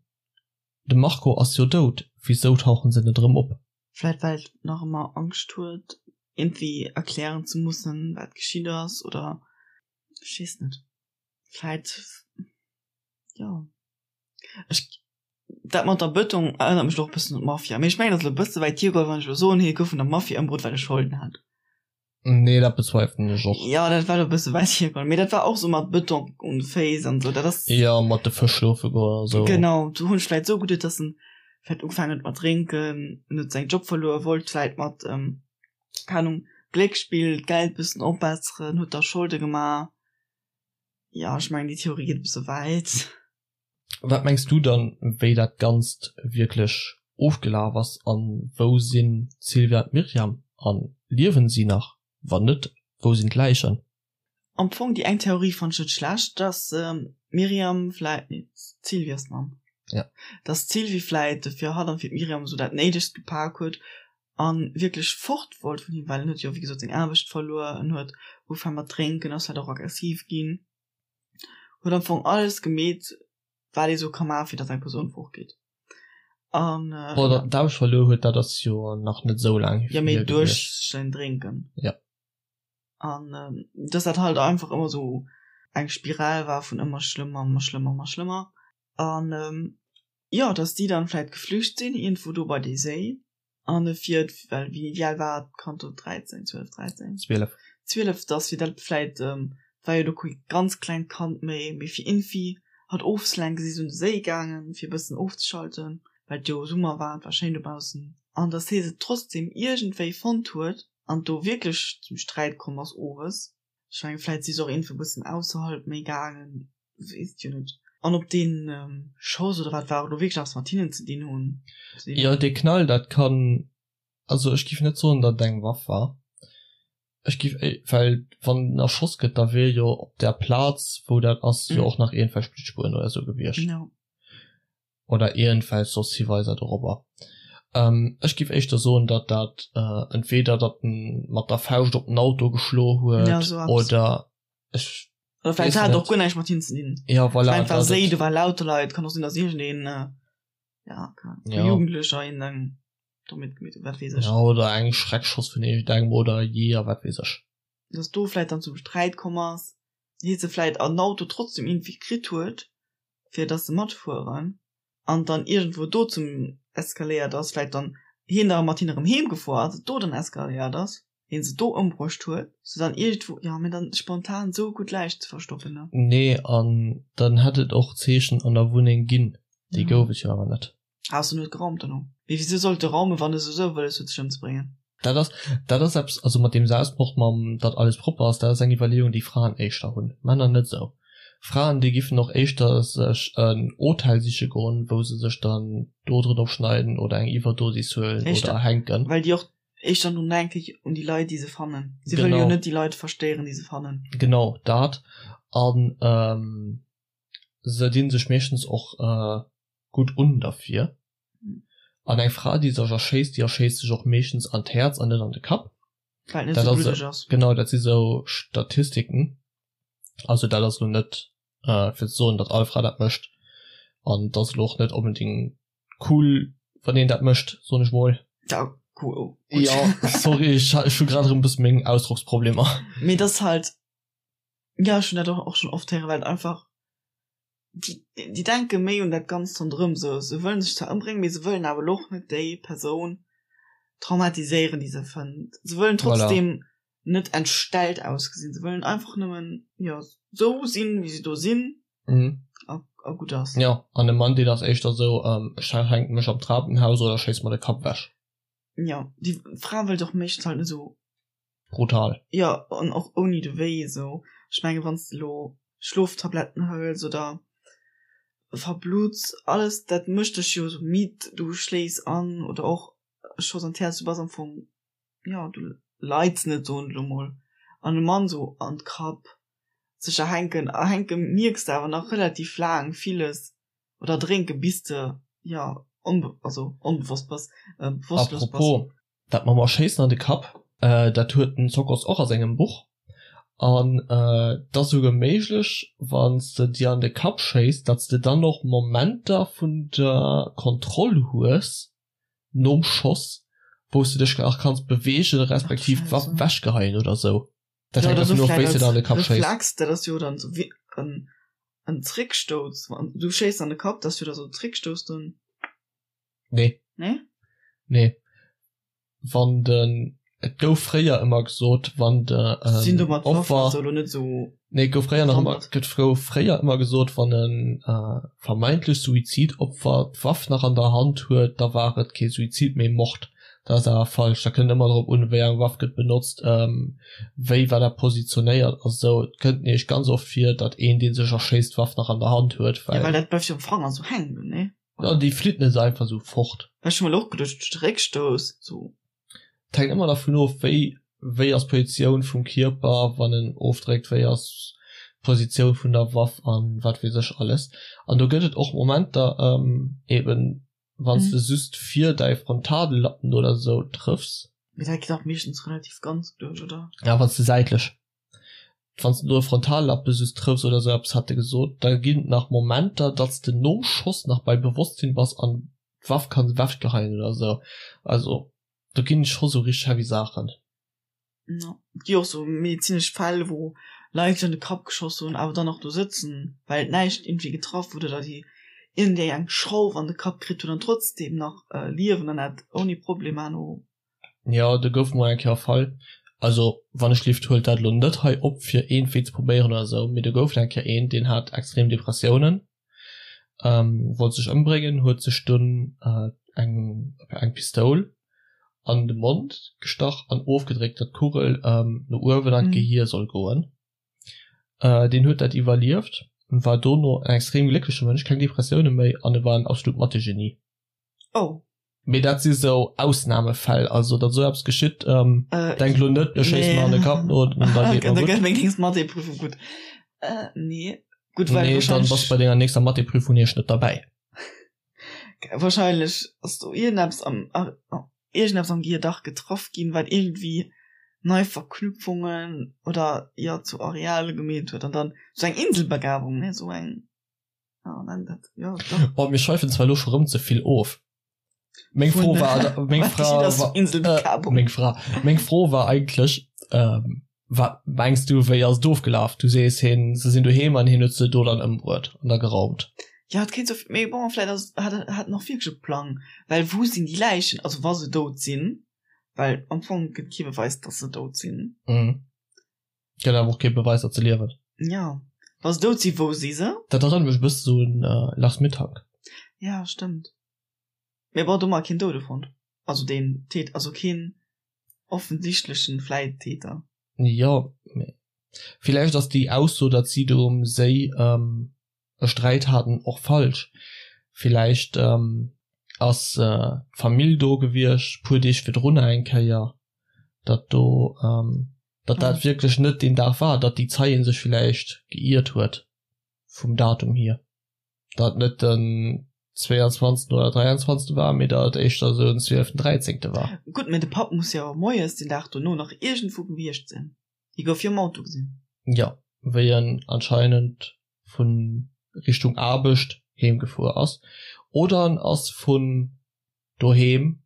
de Marco ass jo dout, wisou tauchen se net erëm op? Vläit well et nach ëmmer Angscht huet, iergendwéi erklären ze mussen, wat geschitt ass, oder ech weess net. Vläit, jo. Ech, dat mat der Bëtong erënnert mech och e bëssen un d'Mafia. Mee ech mengen, dat ass elo e bësse wäit hiergeholl, wann ech elo soen, hie gouf vun der Mafia ëmbruet, well e Scholden hat. Nee, dat bezweifelen ech och. Jo, dat war elo e bësse wäit hiergeholl. Mee dat war och sou mat Bëtong un de Féiss an esou. Dat ass. Jo, mat de Fësch schlofe goen a sou. Genau, do hunn ech vläit esou geduet, dass en. Vläit ugefaangen huet mat drénken, en huet säin Job verluer, wollt vläit mat, keng Ahnung, Gléckspill d'Geld bëssen opbesseren, huet da Scholde gemaach. Jo, ech mengen déi Theorie geet e bësse wäit. Wat mengs du dann, wéi dat Ganzt wierklech ofgelaf ass an wou sinn d'Sylvia an d'Myriam an liewen si nach? Wann net, wou sinn d'Läichen? Am Fong déi eng Theorie fannt ech net schlecht, dass d'Myriam vläit, nee d'Sylvie ass d'Mamm, ja, dass d'Sylvie vläit fir hatt an fir d'Myriam esou dat Néidegst gepak huet an wierklech fort wollt vun him, well en huet jo wéi gesot seng Aarbecht verluer, en huet ugefaang mat drénken, ass vläit och aggressiv ginn, huet am Fong alles gemeet wat ee sou ka maachen fir dass eng Persoun fortgeet an Bon, datt en d'Aarbecht verluer huet, dat ass jo nach net esou laang hier. Jo, mee duerch säin Drénken. Ja. An dass dat halt einfach ëmmer sou eng Spiral war vun ëmmer schlëmmer, ëmmer schlëmmer, ëmmer schlëmmer. An jo, dass déi dann vläit geflücht sinn iergendwou do bei dee Séi. An e fir, well wéi wéi al war d'Kand do, 13, 12, 13? 12. 12, dass fir dat vläit, war jo do kee ganz klengt Kand méi, mee fir iergendwéi hatt ofzelenken, si se un de Séi gaangen, fir e bëssen ofzeschalten, well et jo Summer war, et war schéin dobaussen. An dass hie se trotzdem iergendwéi fonnt huet an do wierklech zum Sträit komm ass owes. Ech mengen, vläit si se och iergendwou e bëssen ausserhalb méi gaangen, weess et jo net. An ob dee Schoss oder wat war elo wierklech eppes mat hinnen ze dinn hunn. Jo, dee Knall, dat kann, also ech giff net soen, datt et eng Waff war. Ech giff, well wann en erschoss gëtt, da wier jo op där Plaz, wou dat ass, jo och nach iergendwelch Bluttspueren oder esou gewiescht. Oder iergendwelch soss Hiweiser dorobber. Ech giff éischter soen, datt dat entweder datt en mat der Fauscht op den Auto geschlo huet oder ech Oder vläicht hat et och guer näischt mat him ze dinn. Ja, voilà. Ech mengen, et war Séi, do waren lauter Leit. Kann och sinn, datt iergendeen, ja, keine Ahnung, ja. Jugendlecher een eng do mitgemeet huet, wat weess ech. Ja, oder eng Schreckschoss vun iergendengem oder Jeeër, wat weess ech. Datt do vläicht dann zum Sträit komm ass, hie se vläicht an den Auto trotzdem iergendwéi kritt huet, fir datt se matfueren, an dann iergendwou do zum eskaléiert ass, vläicht dann hien da mat hinne erëm heem gefuer ass, et do dann eskaléiert ass. hien se do ëmbruecht huet, se dann iergendwou, jo, mee dann spontan sou gutt Läich ze verstoppen, ne? Nee, an dann hätt et och Zeechen an der Wunneng ginn, déi gouf et jo awer net. Ausser en huet geraumt dono. Mee wisou sollt e raumen, wann e souwisou wëlles huet sech ëmzebréngen? Dat ass, dat ass eppes, also mat deem Selbstmord, mam datt alles propper ass, dat ass eng Iwwerleeung, déi Fraen éischter hunn, Männer net esou. Fraen, déi giffen och éischter sech en Hotel siche goen, wou se sech dann d'Oderen opschneiden oder eng Iwwerdosis huelen oder erhänken. Well déi och Éischter drun denke ech un déi Leit, déi se fannen. Si wëlle jo net déi Leit verstéieren, déi se fannen. Genau dat. An se dinn sech meeschtens och gutt un derfir. An eng Fra, déi sech erschéisst, déi erschéisst sech och meeschtens an d'Häerz an net an de Kapp. Well et net esou bluddeg ass. Genau, dat si sou Statistiken. Also dat ass elo net fir ze soen, datt all Fra dat mécht. An et ass elo och net onbedéngt Cool wann een dat mécht, soen ech mol. Ja, cool. Oh, ja, sorry, ech, ech hu grad erëm bëssen meng Ausdrocksproblemer. Mee dat ass halt, ja, ech hunn dat och schon oft héieren, well et einfach, déi, déi denke méi un dat Ganzt ronderëm, se, se wëllen sech zwar ëmbréngen, mee se wëllen awer elo och net déi Persoun traumatiséieren, déi se fënnt. Se wëllen trotzdem voilà. net entstellt ausgesinn, se wëllen einfach nëmmen, jo, sou sinn, wéi se do sinn. Mhm. A, a gutt ass. Jo, an e Mann, deen ass éischter esou, ech hänke mech am Trapenhaus oder schéiss mer de Kapp ewech. Jo, déi Fra wëllt och meeschtens halt net esou. Brutal. Jo, an och ouni de Wéi esou. Ech menge wann s de elo Schloftabletten hëls oder verblutts, alles dat mécht dech jo esou midd, du schléifs an oder och e Schoss an d'Häerz, du bass am Fong, jo, du leids net, soen ech elo mol. An e Mann esou an d'Kapp sech erhänken, erhänke mierks de awer nach relativ laang villes oder drénke bis de jo onbe also onbewosst bass, bewosstlos bass. Apropos, dat mam Erschéissen an de Kapp, dat huet den Zokos och a sengem Buch an et ass esouguer méiglech wann s de dir an de Kapp schéiss, datt s de dann och Momenter vun der Kontroll hues nom Schoss, wou s de dech nach kanns beweegen respektiv d'Waff ewechgeheien oder sou. Dat hänkt dervun of, wéi s de der an de Kapp schéiss. Reflex, dat ass jo dann sou wéi en en Zréckstouss. Wann du schéiss an de Kapp, dat ass jo da sou Zréckstouss dann. Nee. Nee? Nee. Wann den. Et gouf fréier ëmmer gesot, wann de Sinn do mat Waffen Opfer also elo net esou Nee, et gouf fréier nach ëmmer bewandert. et gouf fréier ëmmer gesot, wann e vermeintlecht Suizidopfer d'Waff nach an der Hand huet, da war et kee Suizid, mee Mord. Dat ass awer falsch. Dat kënnt ëmmer drop un, wéi eng Waff gëtt benotzt, wéi war dat positionéiert a sou. Et kënnt nämlech ganz oft vir, datt een, dee sech erschéisst, d'Waff nach an der Hand huet, Ja, well well. dat bleift jo am Fanger sou hänken, nee? Ja, déi flitt net esou einfach esou fort. Well ech hu mer elo och geduecht, duerch de Réckstouss, sou. Et hänkt ëmmer dervun of, wéi wéi ass d'Positioun vum Kierper, wann en ofdréckt, wéi ass d'Positioun vun der Waff an wat weess ech alles. An do gëtt et och Momenter, eben wann s de just vir däi Frontallappen oder esou trëffs. Mee dat geet dach meeschtens relativ ganz duerch, oder? Ja, wann s de säitlech, wann s de do e Frontallappe just trëffs oder esou eppes, hat e gesot, da ginn et nach Momenter, datt s de nom Schoss nach bei Bewosstsinn bass an d'Waff kann ewechgeheien oder sou. Also do ginn scho sou richteg heavy Saachen. Jo, et gi och sou medezinesch Fäll, wou Leit sech an de Kapp geschoss hunn, awer dann nach do sëtzen, well et näischt iergendwéi getraff huet oder déi iergendeng eng Schrauf an de Kapp kritt hunn an trotzdeem nach liewen an dat ouni Problemer no. Jo, do gouf mol eng Kéier e Fall, also wann ech lift huelt dat elo net hei op fir iergendwéi ze probéieren oder sou, mee do gouf et eng Kéier een, deen hat extrem Depressiounen wollt sech ëmbréngen, huet sech dunn eng eng Pistoul an de Mond gestach an ofgedréckt, datt d'Kugel no uewen an d'Gehier soll goen. Deen huet dat iwwerlieft, war dono en extrem gléckleche Mënsch, keng Depressioune méi an e war en absolut Mathé-Genie. Oh. Mee dat si sou Ausnamefäll, also datt esou eppes geschitt, denk elo net, ech schéisse mer an de Kapp no an da geet mer gutt. Da gëtt meng nächst Mathé-Prüfung gutt. Nee, gutt, well Nee, dann bass bei denger nächster Mathé-Prüfung nämlech net derbäi. Wahrscheinlech ass do iergendeppes am, iergendeppes am Gehier dach getraff ginn, wat iergendwéi nei Verknüpfungen oder jo zu Areale gemeet huet an dann sou eng Inselbegabung, ne, sou eng. Oh, mir schweifen zwar elo scho rëm ze vill of. Meng Fro war meng Fra war, meng Fra meng Fro war eigentlech ähm, wat mengs du wéi ass et ofgelaf? Du sees hien se sinn doheem an hien huet se do dann ëmbruet an da geraumt. Ja et kéint sou, mee bon vläit ass hat hat en och wierklech e Plang, well wou sinn déi Läichen, also wa se dout sinn, well am Fong gëtt kee Beweis datt se dout sinn. Mhm. Gëtt awer och kee Beweis datt se liewen. Jo, wa se dout sinn, wou si se? Dat erënnert mech e bësse sou un Lars Mittank. Ja, stëmmt. Mee bon, do hu mer keen Doude fonnt. Also deen Täter, also keen offensichtlechen vläit Täter. Jo, mee villäicht ass déi Ausso, datt si do um Séi e Sträit haten, och falsch. Villäicht ass d'Famill do gewiescht, puer Deeg virdrunner eng Kéier, datt do, datt dat wierklech net deen Dag war, datt déi Zeien sech villäicht geiert huet vum Datum hier, datt net den 22 oder 23 war, mee datt et éischter esou den 12, 13 war. Gutt, mee de Papp muss jo moies den Dag dono nach iergendwou gewiescht sinn. Hie gouf jo am Auto gesinn. Jo, wéi en anscheinend vun Richtung Aarbecht heem gefuer ass oder en ass vun doheem,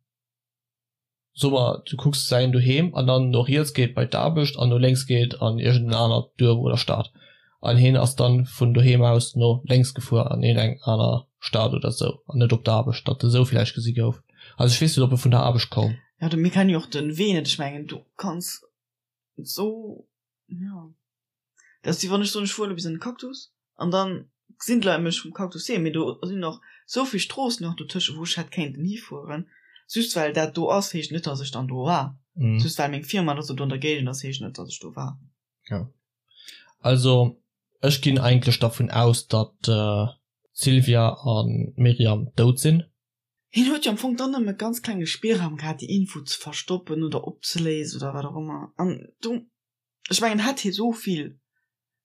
soe mer du kucks säin doheem an dann no riets geet bei d'Aarbecht an no lénks geet an iergend en anert Duerf oder Stad an hien ass dann vun doheem aus no lénks gefuer an iergend eng aner Stad oder sou an net op d'Aarbecht, datt e sou villäicht gesi gouf. Also ech weess net ob e vun der Aarbecht koum. Jo, mir kennen jo och den Wee net, ech mengen du kanns sou Ja. Dat ass wéi wann ech soen, ech fueren bis an de Cactus an dann gesinn d'Leit mech vum Cactus heem, mee do sinn och sou vill Stroossen nach dotëscht, wou ech hätt kéinten hifueren. Just well dat do ass, heescht net, dass ech dann do war. Just well meng Firma oder sou do an der Géigend ass, heescht net, dass ech do war. Jo. Also ech ginn eigentlech dervun aus, datt d'Sylvia a Myriam dout sinn. Hien huet jo am Fong dann nëmme ganz klenge Spillraum gehat, déi Info ze verstoppen oder opzeléisen oder wat och ëmmer. An do, ech mengen, hätt hie sou vill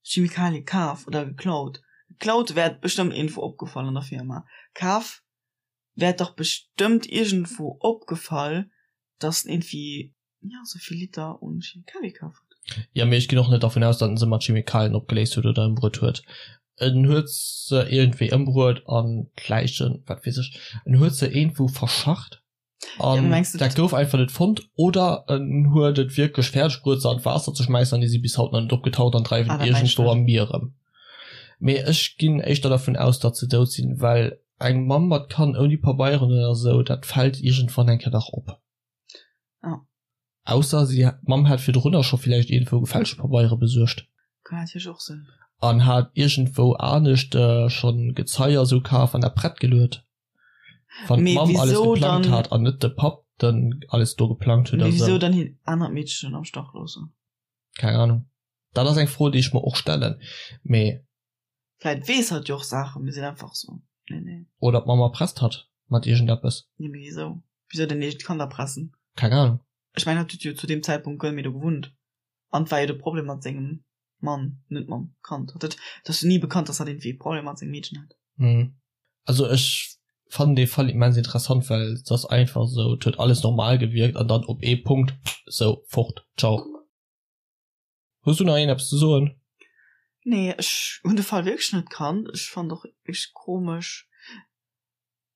Chemikalie kaf oder geklaut, geklaut wär et bestëmmt iergendwou opgefall an der Firma, kaf wär et dach bestëmmt iergendwou opgefall, dass en iergendwéi Ja, sou vill Liter un Chemikalie kaf huet. Jo, mee ech ginn och net dervun aus, datt en se mat Chemikalien opgeléist huet oder ëmbruet huet. En huet se iergendwéi ëmbruet an d'Läichen, wat weess ech, en huet se iergendwou verscharrt an dat gouf einfach net fonnt. Oder en huet et wierklech fäerdeg bruet, se an d'Waasser ze schmäissen an déi si bis haut nach net opgetaucht an dreiwen iergendwou am Mier erëm. Mee ech ginn éischter dervun aus, datt se dout sinn, well eng Mamm mat Kand ouni Pabeieren oder sou, dat fält iergendwann eng Kéier dach op. Ja. Ausser si, d'Mamm hat virdrunner scho villäicht iergendwou gefälschte Pabeiere besuergt. Kann natierlech och sinn. An hat iergendwou anescht schonn Gezei a sou kaf an dat prett geluet. Wann d'Mamm alles geplangt hat an net de Papp dann alles do geplangt huet a sou. Mee wisou dann hiert anert Meedchen am Stach loossen? Keng Ahnung. Dat ass eng Fro, déi ech mer och stellen, mee. Vläit weess hatt jo och Saachen, mee seet einfach sou, nee, nee. Oder d'Mamm erpresst hatt mat iergendeppes. Nee, mee wisou? Wisou denn eegent Kand erpressen? Keng Ahnung. Ech mengen, hatt huet jo zu deem Zäitpunkt guer net méi do gewunnt. An et war jo de Problem mat sengem Mann, net mam Kand. Hatt huet, et ass jo ni bekannt, dass hatt iergendwéi e Problem mat sengem Meedchen hat. Hm. Also ech fannen dee Fall immens interessant, well et ass einfach sou, et huet alles normal gewierkt an dann op ee Punkt sou fort, ciao. Hues du nach een eppes ze soen? Nee, ech hunn de Fall wierklech net kannt. Ech fannen och wierklech komesch.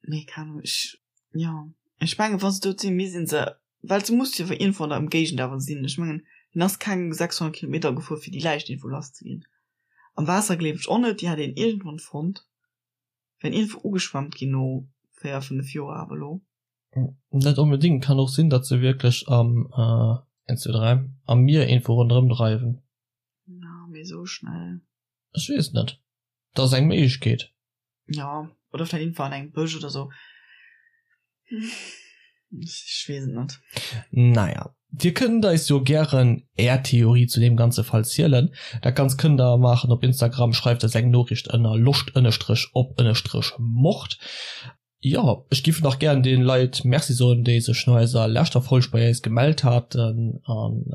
Mee keng Ahnung, ech, jo, ech mengen wa se dout sinn, misst een se, well se muss jo iergendwou an der Ëmgéigend awer sinn. Ech mengen hien ass keng 600 Kilometer gefuer fir déi Läich iergendwou lass ze ginn. Am Waasser gleef ech och net, déi hätt een iergendwann fonnt, wär iergendwou ugeschwemmt ginn no 4, 5 Joer awer elo. Net onbedingt, kann och sinn, datt se wierklech am, 1, 2, 3, am Mier iergendwou ronderëm dreiwen. Na, mee esou schnell. Ech weess net, dat ass eng Méiglechkeet. Ja, oder vläicht iergendwou an engem Bësch oder sou. Ech weess et net. Naja, Dir kënnt eis jo gären Är Theorie zu deem ganze Fall zielen. Dat Ganzt kënnt der maachen op Instagram, schreift eis eng Noriicht ënner loscht ënnestrech op ënnestrech mord. Jo, ech giff nach gären den Leit Merci soen, déi sech no eiser leschter Folg bei eis gemellt haten an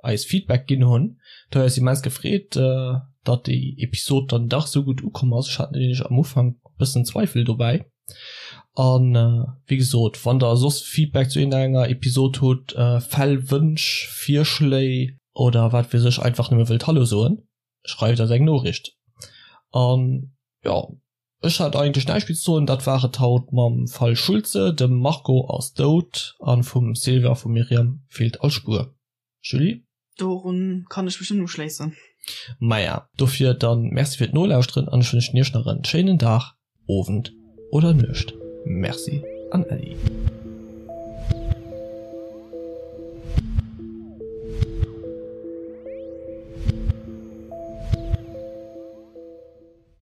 eis Feedback ginn hunn. Et huet eis immens gefreet, datt déi Episod dann dach sou gutt ukomm ass. Ech hat nämlech am Ufank bëssen Zweifel dobäi. An wéi gesot, wann der soss Feedback zu iergendenger Episod hutt, Fäll, Wënsch, Virschléi oder wat weess ech, einfach nëmme wëllt Hallo soen, schreift eis eng Noriicht. An jo. Ech hat eigentlech näischt méi ze soen. Dat war et haut mam Fall Schulze. Dem Marco ass dout an vum Sylvie a vum Myriam feelt all Spuer. Julie? Dorun kann ech mech nëmmen uschléissen. Maja, dofir dann Merci fir d'Nolauschteren an ech wënschen iech nach en schéinen Dag, Owend oder Nuecht. Merci an Äddi.